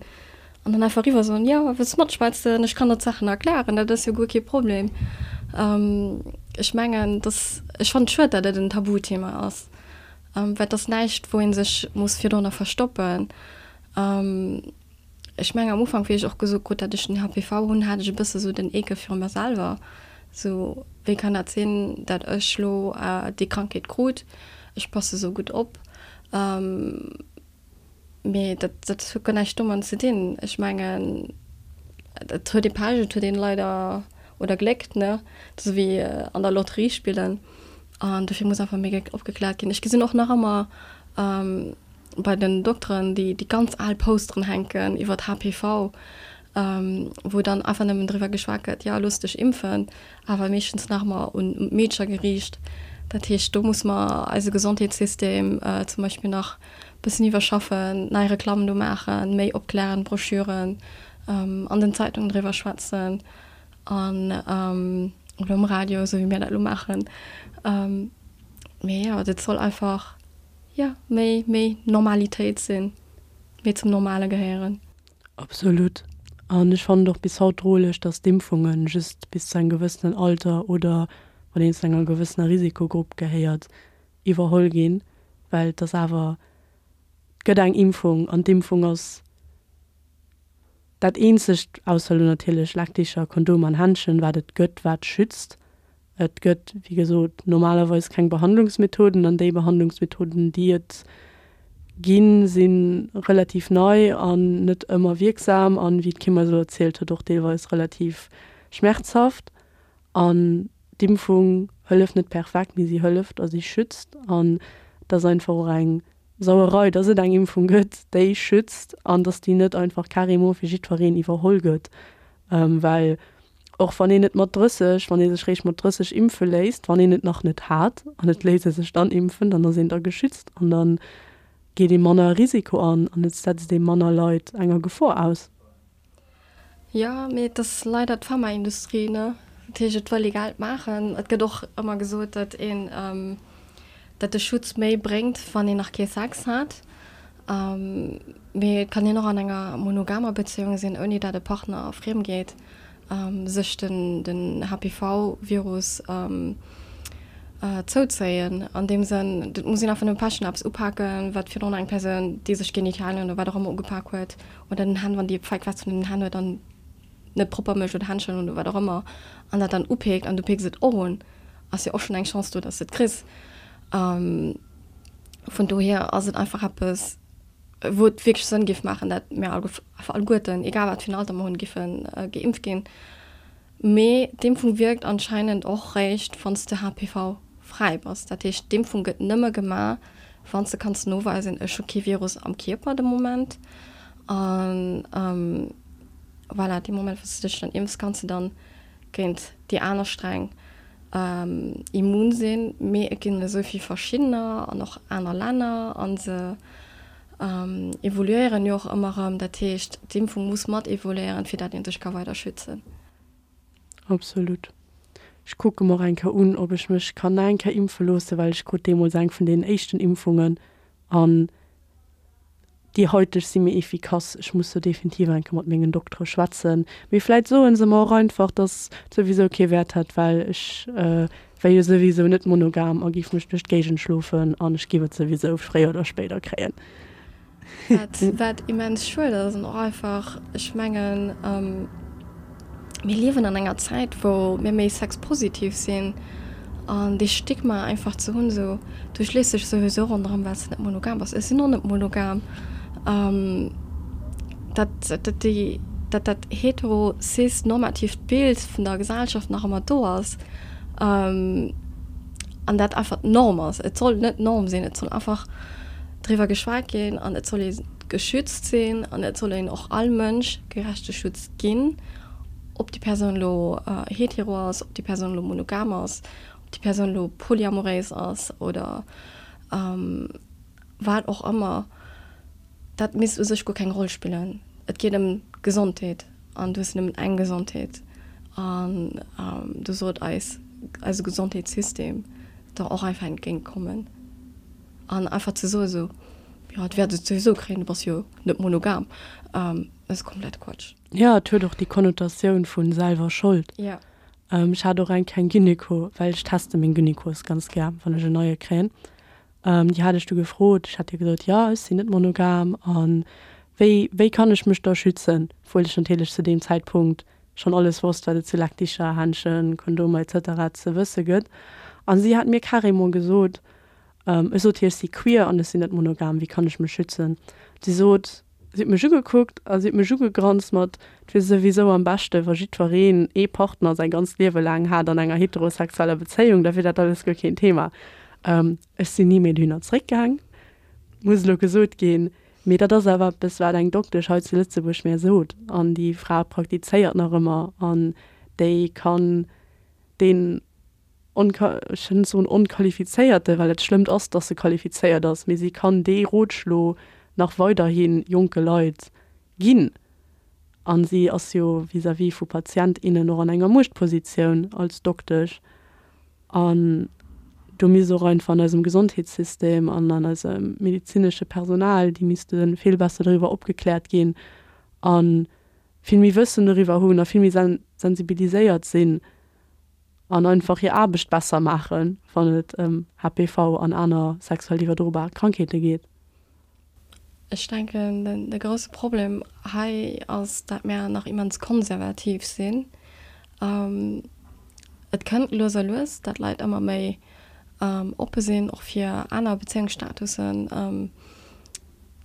an dann einfach eriwwer soen, Jo, wëlls matschwätzen? Ech kann der d'Saachen erklären, dat ass jo guer kee Problem. Ech mengen, dass, ech fannen et schued, dat et en Tabuthema ass, well et ass näischt, wou ee sech muss virdrunner verstoppen. Ech mengen am Ufank, wéi ech och gesot krut, dat ech den HPV hunn, hat ech e bësse sou den Eekel viru mer selwer. Sou, wéi kann dat sinn, dat ech lo déi Krankheet krut? Ech passe sou gutt op. Mee dat, dat huet guer näischt domat ze dinn. Ech mengen, et huet ee Pech, et huet een leider, oder Gléck, ne, dat ass wéi an der Lotterie spillen. An dofir muss einfach méi opgekläert ginn. Ech gesinn och nach ëmmer, bei den Dokteren déi déi ganz al Posteren hänken iwwert HPV, wou dann einfach nëmmen driwwer geschwat gëtt, jo looss dech impfen, awer meeschtens nach ëmmer un d'Meedcher geriicht. Dat heescht, do muss mer eise Gesondheetssystem zum Beispill nach e bëssen iwwerschaffen, nei Reklammen do maachen, méi opklären, Broschüren, an den Zeitungen driwwer schwätzen an oder um Radio, esou wéi mir dat elo maachen. Mee jo, dat soll einfach. jo, méi, méi Normalitéit sinn, méi zum Normale gehéieren. Absolut. An ech fannen et och bis haut droleg, dass d'Impfunge just bis zu engem gewëssenen Alter oder wann een zu enger gewëssener Risikogrupp gehéiert, iwwerholl ginn, well et ass awer, et gëtt eng Impfung an d'Impfung ass dat eenzegt, ausser elo natierlech Leckdicher, Kondomer an Händschen, wat et gëtt, wat schützt. Et gëtt, wéi gesot, normalerweis keng Behandlungsmethoden an déi Behandlungsmethoden, déi et ginn, si relativ nei an net ëmmer wierksam an, wéi d'Kim eis elo erzielt huet, och deelweis relativ schmerzhaft. An d'Impfung hëlleft net perfekt, mee si hëlleft a si schützt. An et ass einfach och eng Sauerei, dass et eng Impfung gëtt, déi schützt an dass déi net einfach carrément fir jiddwereen iwwerholl gëtt, well och wann een et mat 30, wann ee sech réischt mat 30 impfe léisst, wann een et nach net hat an et léisst ee sech dann impfen, dann ass een da geschützt an da geet ee manner Risiko an an et setzt ee manner Leit enger Gefor aus. Jo, mee et ass leider d'Pharmaindustrie, ne? Dat heescht, et wëll ee Geld maachen. Et gëtt och ëmmer gesot, datt een, datt de Schutz méi bréngt, wann een nach kee Sex hat. Mee et kann een och an enger monogamer Bezéiung sinn, ouni dat e Partner friem geet, sech den, den HPV-Virus zouzéien. An deem Sënn, et muss een einfach nëmme Pech hunn, eppes upaken, wat virdrun eng Persoun, déi sech Genitalien oder wat och ëmmer ugepak huet, Oder den Hänn, wann déi feig Wätz vun den Hänn huet an net propper mécht oder Händschen oder wat och ëmmer an dat dann upeekt an du peeks et och un, ass jo och schonn eng Chance do, dass de et kriss. Vun dohier ass et einfach eppes, wou et wierklech Sënn géif maachen, dat mir einfach alleguerten, egal wat fir en Alter mer hunn, géife geimpft ginn. Mee d'Impfung wierkt anscheinend och réischt, wann s de HPV-fräi bass. Dat heescht, d'Impfung gëtt nëmme gemaach, wann s de kanns noweisen, ech hu kee Virus am Kierper de Moment. A voilà, dee Moment, wou s de dech dann impfs, kanns de dann géint déi aner Sträng immun sinn. Mee et ginn esou vill verschiddener an och aner Länner a se evoluéieren jo och ëmmer erëm. Dat heescht, d'Impfung muss mat evoluéieren, fir dat ee sech ka weider schützen. Absolut. Ech kucke mer och eng Kéier un, ob ech mech kann nach eng Kéier impfe loosse, well ech krut deemools eng vun deenen éischten Impfungen an déi haiteg si méi efficace. Ech muss do definitiv eng Kéier mat mengen Doktere schwätzen. Mee vläit soe se mer och einfach, dass et souwisou kee Wäert hätt, well ech wär jo souwisou net monogam a giff mech duerch d'Géigend schlofen an ech giff et souwisou fréier oder spéider kréien. Wat, wat immens schued ass an och einfach, ech mengen, mir liewen an enger Zäit, wou mir méi sexpositiv sinn an dee Stigma einfach ze hunn, esou, du schleefs dech souwisou ronderëm, well s de net monogam bass. Ech sinn och net monogam. Dat, dat déi, dat dat hetero-cis-normatiivt Bild vun der Gesellschaft nach ëmmer do ass. An dat einfach d'Norm ass. Et soll net d'Norm sinn, et soll einfach driwwer geschwat ginn an et soll ee geschützt sinn an et soll een och all Mënsch gerechte Schutz ginn, ob déi Persoun elo hetero ass, ob déi Persoun elo monogam ass, ob déi Persoun elo polyamoréis ass oder wat och ëmmer. Dat misst u sech guer keng Roll spillen. Et geet ëm d'Gesondheet an du hues nëmmen eng Gesondheet an do sollt eis eise Gesondheetssystem der och einfach entgéint kommen an einfach ze soe sou, jo et wäert et souwisou kréien, du bass jo net monogam, ass komplett Quatsch. Jo, et huet och déi Konnotatioun vu selwer Schold. Jo. Ech hat och eng keng Gynéco, well ech teste meng Gynécos ganz gär, wann ech en neie kréien. Déi hat ech du gefrot, ech hat hir gesot, jo ech sinn net monogam a wéi wéi kann ech mech da schützen, obwuel ech natierlech zu deem Zäitpunkt schonn alles wosst, wat et zu Leckdicher, Händschen, Kondomer etc. Ze wësse gëtt. A si hat mir carrément gesot, ech sot hir, ech si queer an ech sinn net monogam, wéi kann ech mech schützen? Si sot, Si huet mech ugekuckt a si huet mech ugegranzt mat, Et wier souwisou am beschte wa jiddwereen ee Partner säi ganzt Liewe laang hat an enger heterosexueller Bezéiung, da wier dat alles guer keen Thema. Ech sinn ni méi dohinner zréckgaang, muss elo gesot ginn. Mee dat ass awer eppes, wat eng Doktesch hei zu Lëtzebuerg mär sot. An déi Fra praktizéiert nach ëmmer an déi kann deen ech wëll net soen onqualifizéierte, well et schlëmmt ass, dass se qualifizéiert ass, mee si kann dee Rotschlo nach weiderhi jonke Leit ginn. A si ass jo vis-à-vis vu Patient, innen och an enger Muechtpositioun als Doktesch. An do misst och einfach an eisem Gesondheetssystem an an eisem medezinesche Personal, déi misste vill besser doriwwer opgekläert ginn a vill méi Wëssen doriwwer hunn a vill méi sensibiliséiert sinn. An einfach hir Aarbecht besser maachen, wann et ëm HPV an aner sexuell iwwerdrobar Krankheete geet. Ech denken, de grousse Problem hei ass, dat mär nach immens konservativ sinn. Et kënnt lues a lues, dat Leit ëmmer méi oppe sinn, och fir aner Bezéiungsstatussen.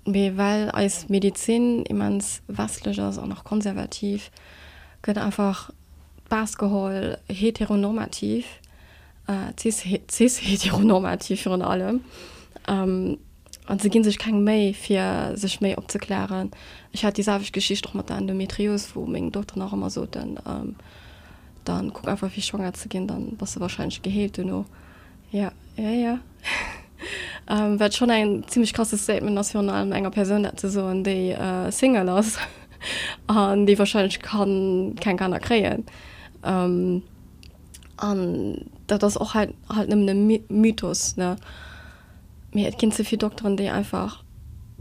Mee well eis Medezin immens westlech ass an och konservativ, gëtt einfach d'Base geholl, heteronormativ, cis-heteronormativ virun allem. An se gi sech keng Méi, fir sech méi opzeklären. Ech hat déi selwecht Geschicht och mat der Endometrios, wou meng Dokteren och ëmmer soten, Dann kuck einfach fir schwanger ze ginn, dann bass de warscheinlech geheelt duerno. Jo, jo, jo. Wat schonn eng zimmlech krasse Statement ass, virun allem enger Persoun dat ze soen, déi Single ass an déi warscheinlech kann keng Kanner kréien. An dat ass och halt halt nëmmen e Mythos, ne? Mee et ginn ze vill Dokteren, déi einfach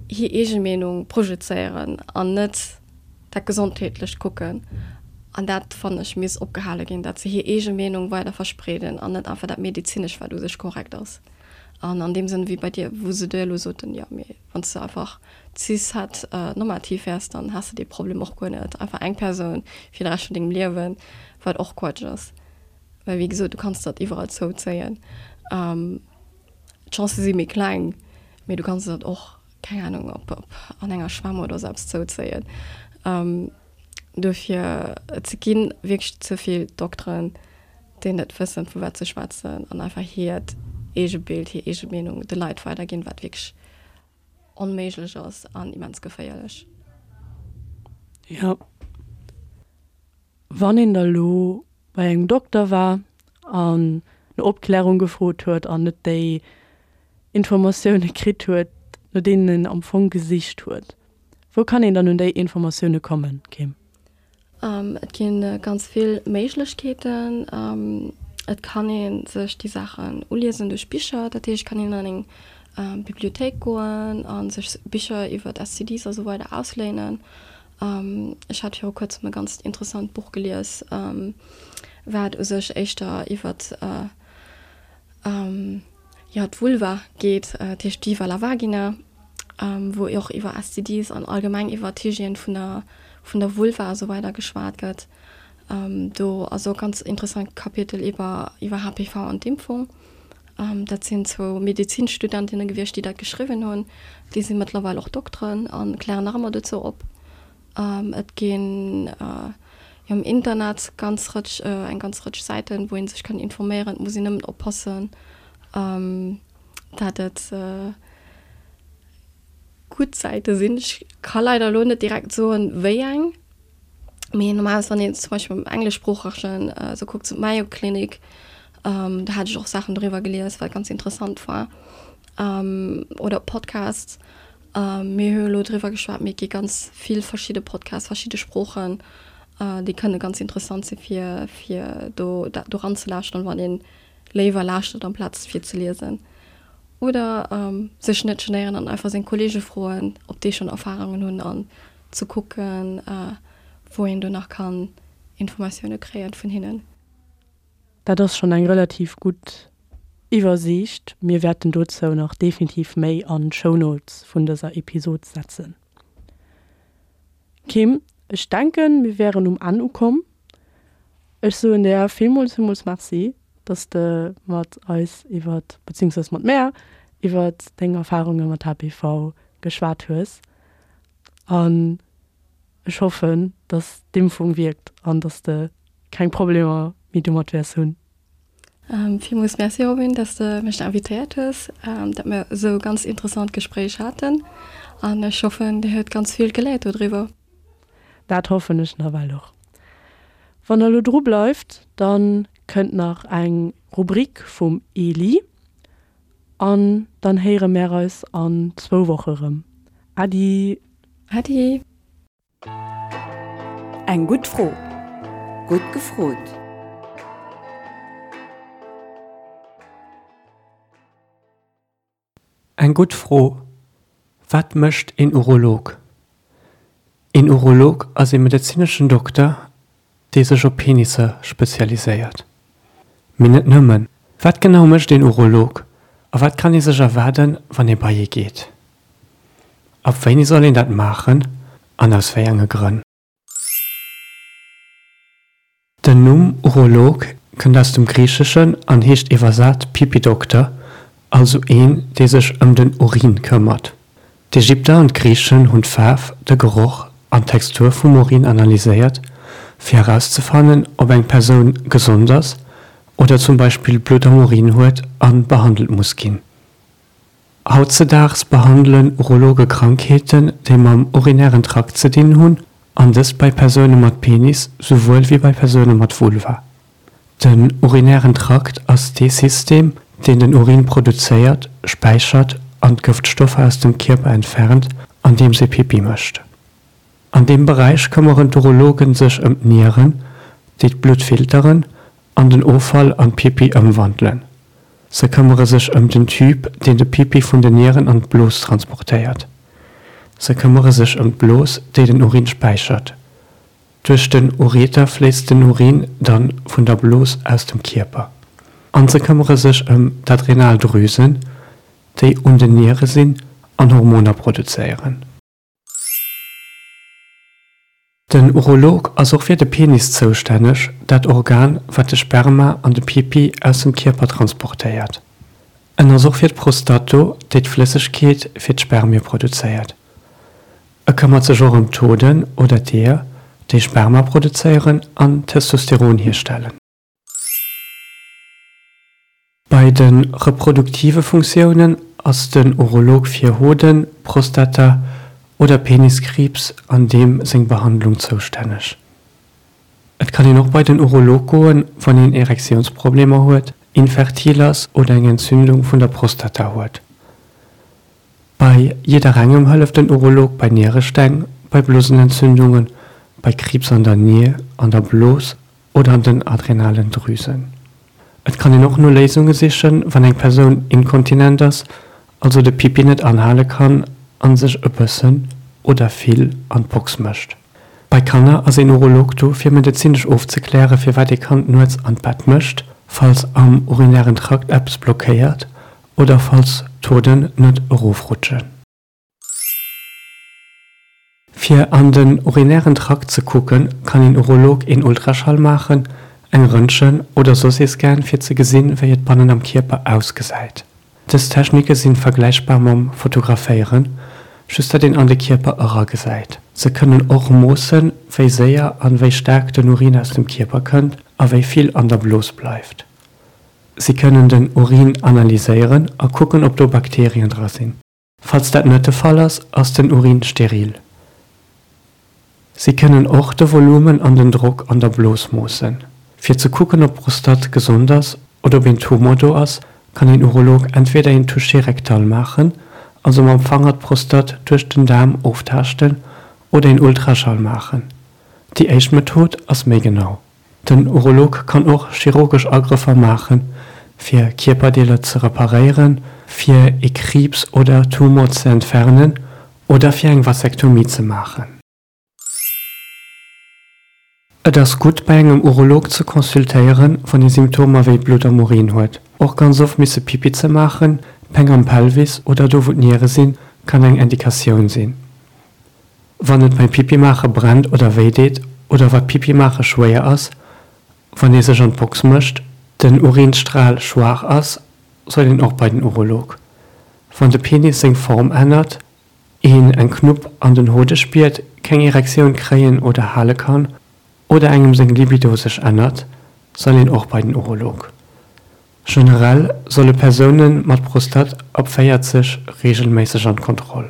hir eege Meenung projezéieren an net dat Gesondheetlecht kucken. An dat, fannen ech, misst opgehale ginn, dat se hir eege Meenung weider verspreeden an net einfach dat Medezinescht, wat u sech korrekt ass. An an deem Sënn, wéi bei dir, wou se dir elo soten, jo, mee wann s de einfach cis-het normativ wäers, dann häss de dee Problem och guer net. Einfach eng Persoun fir de Rescht vun dengem Liewen, wat och Quatsch ass. Well wéi gesot, du kanns dat iwwerall zouzéien. D'Chancë si méi kleng, mee du kanns dat och, keng Anung, op, op an enger Schwämm oder sou eppes zouzéien. Dofir, et gi wierklech ze vill Dokteren, déi net wëssen, vu wat se schwätzen an einfach hiert eege Bild, hir eege Meenung de Leit weiderginn, wat wierklech onméiglech ass an immens geféierlech. Jo. Wann een da lo bei engem Dokter war an no Opklärung gefrot huet an net déi Informatioune kritt huet, no deenen een am Fong gesicht huet, wou kann een dann un déi Informatioune kommen, Kim? Et gi ganz vill Méiglechkeeten. Et kann ee sech déi Saachen uliesen duerch Bicher. Dat heescht, et kann een an eng Bibliothéik goen a sech Bicher iwwer STDs a sou weider ausléinen. Ech hat viru kuerzem e ganzt interessant Buch gelies, wat u sech éischter iwwert jo, d'Vulva geet, dat heescht Viva la Vagina, wou och iwwer STDs an allgemeng iwwer d'Hygiène vun der, vun der Vulva a sou weider geschwat gëtt. Do ass och e ganz interessant Kapitel iwwer, iwwer HPV an d'Impfung. Dat sinn zwou Medezinstudentinne gewiescht, déi dat geschriwwen hunn. Déi si mëttlerweil och Dokteren a klären nach ëmmer dozou op. Et ginn jo am Internet ganz Rëtsch, eng ganz Rëtsch Säiten, wou ee sech kann informéieren. Et muss een nëmmen oppassen. Dat et gutt Säite sinn. Ech ka leider elo net direkt soen, wéi eng, mee normalerweis wann een zum Beispill am engleschsproochegen esou kuckt, sou d'Mayo Clinic, do hat ech och Saachen doriwwer gelies, wat ganz interessant war, oder Podcasts. Mir hu elo driwwer geschwat, mee et gi ganz vill verschidde Podcasts, verschidde Sproochen, déi kënne ganz interessant si fir fir do dat doran ze lauschteren, wann een léiwer lauschtert amplaz fir ze liesen. Oder sech net genéieren an einfach seng Kollege froen, ob déi schonn Erfarungen hunn an ze kucken, wou een do nach kann Informatioune kréien vun hinnen. Dat ass schonn eng relativ gutt Iwwersiicht. Mir wäerten dozou nach definitiv méi an d'Shownotes vun dëser Episod setzen. Kim, ech denken, mir wären um Enn ukomm. Ech soen der villmools, villmools Merci, dass de mat eis iwwert, beziehungsweise mat mär iwwert deng Erfarunge mat HPV geschwat hues. An ech hoffen, dass d'Impfung wierkt an dass de keng Problemer méi domat wäers hunn. Villmools Merci Robin, dass de mech invitéiert hues, dat mir esou e ganz interessant Gespréich haten an ech hoffen dir huet ganz vill geléiert dodriwwer. Dat hoffen ech nawell och. Wann der elo dru bleift, dann kënnt nach eng Rubrik vum Eli an dann héiere mär eis an zwou Woche rëm. Äddi! Äddi! Eng gutt Fro. Gutt gefrot. Eng gutt Fro, Wat mécht een Urolog? Een Urolog ass ee medezineschen Dokter, dee sech op Penisser spezialiséiert. Mee net nëmmen. Wat genau mécht een Urolog a wat kann ee sech erwaarden, wann ee bei ee geet? Ab wéini soll een dat maachen an aus wéi enge Grënn? Den Numm Urolog kënnt aus dem Griicheschen an heescht iwwersat Pipi-Dokter, also een, dee sech ëm den Urin këmmert. D'Ägypter an d'Griichen hunn d'Faarf, de Geroch an d'Textur vum Urin analyséiert, fir erauszefannen, ob eng Persoun gesond ass oder zum Beispill Blutt am Urin huet a behandelt muss ginn. Hautzedaags behandelen Urologe Krankheeten, déi mam urinären Trakt ze dinn hunn, an dëst bei Persoune mat Penis souwuel wéi bei Persoune mat Vulva. Den urinären Trakt ass dee System, deen den Urin produzéiert, späichert an d'Gëftstoffer aus dem Kierper entfernt, andeems ee Pipi mécht. An deem Beräich këmmeren d'Urologen sech ëm d'Nieren, déi d'Blutt filteren an den Offall an Pipi ëmwandelen. Se këmmere sech ëm den Tube, deen de Pipi vun den Nieren an d'Blos transportéiert. Se këmmere sech ëm d'Blos, déi den Urin späichert. Duerch den Ureter fléisst den Urin dann vun der Blos aus dem Kierper. An se këmmere sech ëm d'Adrenaldrüsen, déi un den Niere sinn an Hormoner produzéieren. Den Urolog ass och fir de Penis zoustänneg, dat Organ, wat de Sperma an de Pipi aus dem Kierper transportéiert. En ass och fir d'Prostate do, déi d'Flëssegkeet fir d'Spermie produzéiert. E këmmert sech och ëm d'Hoden oder d'Eeër, déi Sperma produzéieren an Testosteron hierstellen. Bei de reproduktive Funktiounen ass den Urolog fir Hoden-, Prostata oder Peniskriibs an deem seng Behandlung zoustänneg. Et kann een och bei den Urolog goen, wann een Erektiounsproblemer huet, infertil ass oder eng Entzündung vun der Prostata huet. Bei jidderengem hëlleft den Urolog bei Nieresteng, bei Blosenentzündungen, bei Kriibs an der Nier, an der Blos oder an den adrenalen Drüsen. Et kann een och no Léisunge sichen, wann eng Persoun inkontinent ass, also de Pipi net anhale kann an sech e bëssen oder vill an d'Box mécht. Bei Kanner ass een Urolog do fir medezinesch ofzekläre firwat ee Kand nuets an d'Bett mécht, falls am urinären Trakt eppes blockéiert oder falls d'Hoden net erofrutschen. Fir an den urinären Trakt ze kucken, kann een Urolog een Ultraschall maachen, eng Röntgen oder soss ee Scan fir ze gesinn, wéi et bannen am Kierper ausgesäit. Dës Technike sinn vergläichbar mam Fotograféieren, just dat een an de Kierper eragesäit. Se kënnen och moossen, wéi séier an wéi staark den Urin aus dem Kierper kënnt a wéi vill an der Blos bleift. Si kënnen den Urin analyséieren a kucken, ob do Bakterien dra sinn. Falls dat net de Fall ass, ass den Urin steril. Si kënnen och de Volumen an den Drock an der Blos moossen. Fir ze kucken, ob d'Prostate gesond ass oder ob een Tumor do ass, kann een Urolog entweder een Toucher rectal maachen, also mam Fanger d'Prostate duerch den Daarm oftaaschten, oder een Ultraschall maachen. Déi éischt Method ass méi genau. Den Urolog kann och chirurgesch Agrëffer maachen, fir Kierperdeeler ze reparéieren, fir ee Kriibs oder Tumor ze entfernen oder fir eng Vasektomie ze maachen. Et ass gutt, bei engem Urolog ze consultéieren, wann ee Symptomer wéi Blutt am Urin huet. Och ganz oft misse Pipi ze maachen, Péng am Pelvis oder do wou d'Niere sinn, kann eng Indikatioun sinn. Wann et beim Pipi maache brennt oder wéi deet oder wat Pipi maache schwéier ass, wann ee sech an d'Box mécht, den Urinstral schwaach ass, soll een och bei den Urolog. Wann de Penis seng Form ännert, een eng Knupp an den Hode spiert, keng Erektioun kréien oder hale kann oder engem seng Libido sech ännert, soll een och bei den Urolog. Generell solle Persoune mat Prostate ab 40 reegelméisseg an d'Kontroll.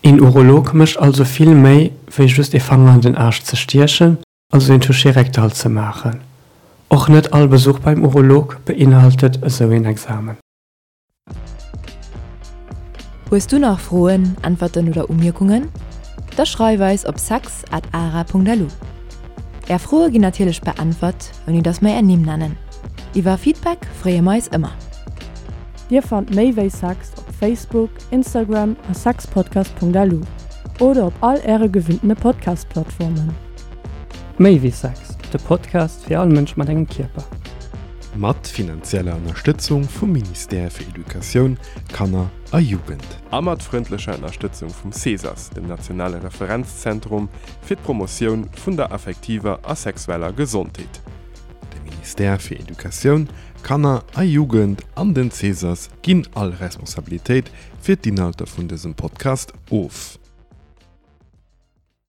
Een Urolog mécht also vill méi wéi just ee Fanger an den Aarsch ze stiechen, also een Toucher rectal ze maachen. Och net all Besuch beim Urolog beinhaltet esou een Examen. Hues du nach Froen, Äntwerten oder Umierkungen? Da schreif eis op sex at ara.lu. Är Froe ginn natierlech beäntwert, ouni dass mer är Nimm nennen. Iwwer Feedback freeë mer eis ëmmer. Dir fannt méi wéi Sex op Facebook, Instagram a sexpodcast.lu oder op all äre gewinntene Podcast-Plattformen. Méi wéi Sex, de Podcast fir all Mënsch mat engem Kierper. Mat finanzieller Ënnerstëtzung vum Ministère fir Educatioun, Kanner a Jugend. A mat frëndlecher Ënnerstëtzung vum CESAS, dem nationale Referenzzentrum fir d'Promotioun vun der affektiver a sexueller Gesondheet. De Ministère fir Educatioun, Kanner a Jugend an den CESAS ginn all Responsabilitéit fir d'Inhalter vun dësem Podcast of.